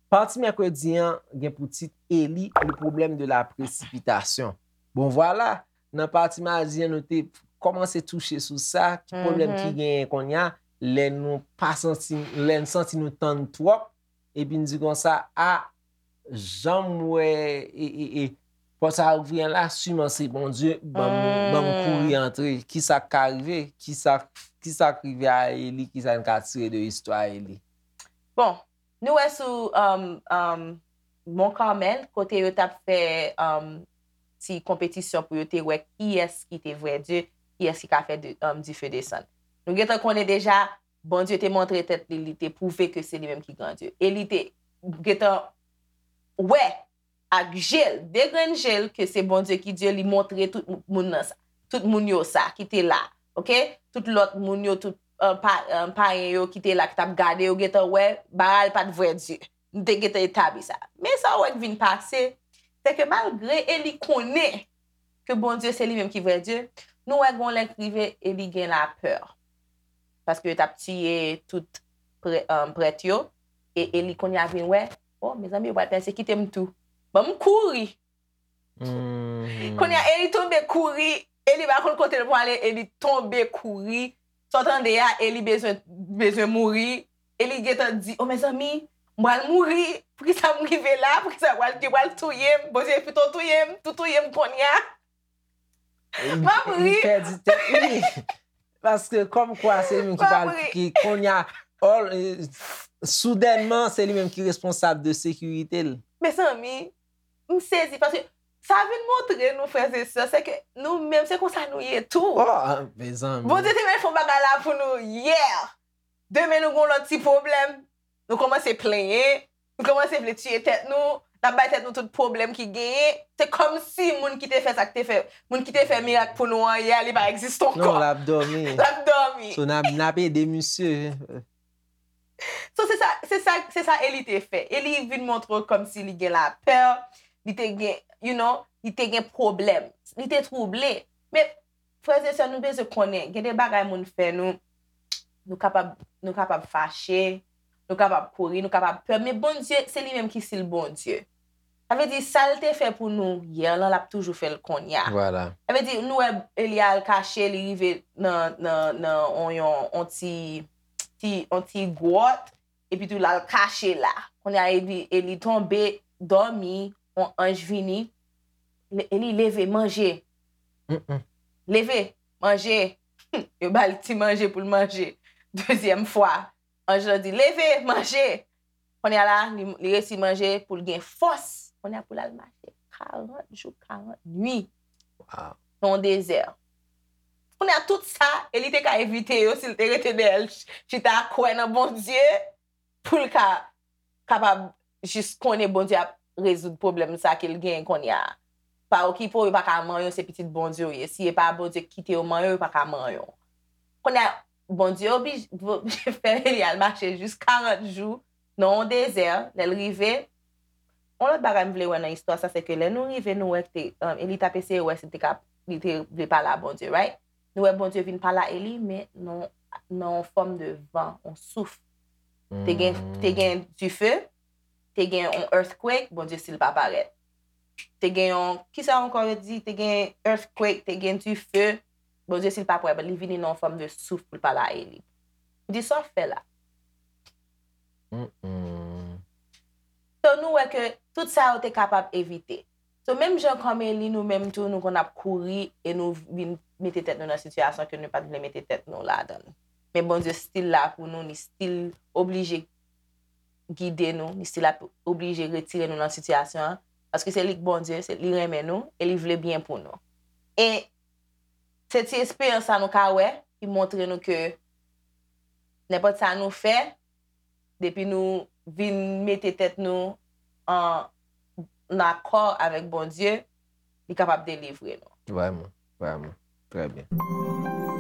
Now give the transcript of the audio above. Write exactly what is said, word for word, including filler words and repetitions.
Pati mèkredi an gen pou tit Eli, le problème de la précipitation. Bon, vwala, nan pati madi an, nou te kòmanse touche sou sa, ki pwoblèm ki genyen kounye a, lè nou pa santi, lè n santi nou tann twòp, epi n di konsa, a, jan m wè, e, e, e, pòt sa ouvri an la, siman se Bondye, ban m, ban m kouri antre. Kisa k ka rive? Kisa, kisa k rive a Eli? Kisa n ka tire de istwa Eli? Bon, nou wè sou um, um, Mont Carmel, kote yo t ap fè um, ti konpetisyon pou yo te wè kiyès ki te vrè Dye, kiyès ki ka fè de, um, dife desann. Nou gentan konnen deja, Bondye te montre tèt li, li te pwouve ke se li menm ki gran Dye. E li te gentan wè ak je l, de grenn je l, ke se Bondye ki Dye, li montre tout moun nan sa, tout moun yo sa ki te la, oke? Tout lòt moun yo, tout uh, pa, uh, payen yo ki te la, ki t ap gade, yo gentan wè Baal pa t vrè Dye. Nou te gentan etabli sa. Men sa w wè k vin pase, se ke malgre Eli konnen ke Bondye se li menm ki vrè Dye, nou wè gon lè k rive Eli gen lapè. Paske yo t ap tiye tout prè, um, prèt yo. E Eli kounye a vin wè, o, mezanmi, yo pral pèsekite m tou. Ban m kouri. Kounye a, Eli tonbe kouri. Eli pa konn kote l pwale, Eli tonbe kouri. Sa w tande a, Eli bezwen, bezwen mouri. Eli gentan di, o, mezanmi, m pral mouri. Poukisa m rive la? Poukisa yo pral, yo pral touye m? Bondye pito touye m, tou touye m kounye a. M ap ri. Li pèdi tèt li. Paske kòmkwa se li menm ki pral, ki kounye a, soudènman, se li menm ki responsab de sekirite l. Mezanmi, m sezi paske sa vin montre nou, frè e sè, se ke nou menm, se konsa nou ye tou. Oh, mezanmi. Bondye te mèt fè yon bagay la pou nou yè. Demen nou gon lòt ti pwoblèm. Nou kòmanse plenyen, nou kòmanse vle tiye tèt nou, n ap bay tèt nou tout pwoblèm ki genyen. Se kòmsi moun ki te fè sa k te fè, moun ki te fè mirak pou nou an yè, li pa egziste ankò. Non, l ap dòmi. L ap dòmi. So, n ap, n ap ede misye. So, se sa, se sa, se sa Eli te fè. Eli vin montre w kòmsi li gen lapè, li te gen, you know, li te gen pwoblèm. Li te twouble. Men, frè e sè, nou bezwen konnen, gen de bagay moun fè nou, nou kapab, nou kapab fache, nou kapab kouri, nou kapab pè, men Bondye, se li menm ki sil Bondye. Sa vle di, sa l te fè pou nou yè lan, l ap toujou fè l kounye a. Vwala. Sa vle di, nou wè Eli al kache, li rive nan, nan, nan on, yon, on ti, ti, on ti gwòt, epi tou l al kache la. Kounye a, Eli, Eli tonbe, dòmi, on anj vini, Eli leve, manje. Leve, manje. Yo ba l ti manje pou l manje. Dezyèm fwa, anj lan di, leve, manje. Kounye a la, li, li resi manje pou l gen fòs. Kounye a pou l al mache karant jou, karant nwi. Nan dezè. Kounye a tout sa, Eli te ka evite yo si l te rete dèyè l chita kwè nan Bondye pou l ka kapab jis konnen Bondye ap rezoud pwoblèm sa ke l genyen kounye a. Pa okipe w, yo pa ka manyen w, se pitit Bondye w ye. Si e pa Bondye ki kite yo manyen w, yo pa ka manyen w. Kounye a, Bondye oblije fè Eli al mache jis karant jou nan yon dezè, lè l rive. Yon lòt bagay m vle wè nan istwa sa, se ke lè nou rive, nou wè ke Eli t ap eseye wè si l te ka, li te vle pale a Bondye, right? Nou wè Bondye vin pale a Eli, men nan, nan yon fòm de van, yon souf. Te gen, te gen dife, te gen yon earthquake, Bondye sil pa parèt. Te gen yon, kisa ankò yo di? Te gen earthquake, te gen dife, Bondye sil pa parèt, li vini nan yon fòm de souf pou l pale a Eli. Li di, sa w fè la? So, nou wè ke tout sa yo te kapab evite. So, menm jan kòm Eli, nou menm tou, nou konn ap kouri e nou vin mete tèt nou nan sitiyasyon ke nou pa t vle mete tèt nou ladan l. Men Bondye still la pou nou, li still oblije gide nou, li still ap oblije retire nou nan sitiyasyon an. Paske se li k Bondye, se li renmen nou e li vle byen pou nou. E se ti esperyans sa nou ka wè ki montre nou ke nenpòt sa nou fè, depi nou vin mete tèt nou an, an akò avèk Bondye, li kapab delivre nou. Vrèman, vrèman. Trè byen.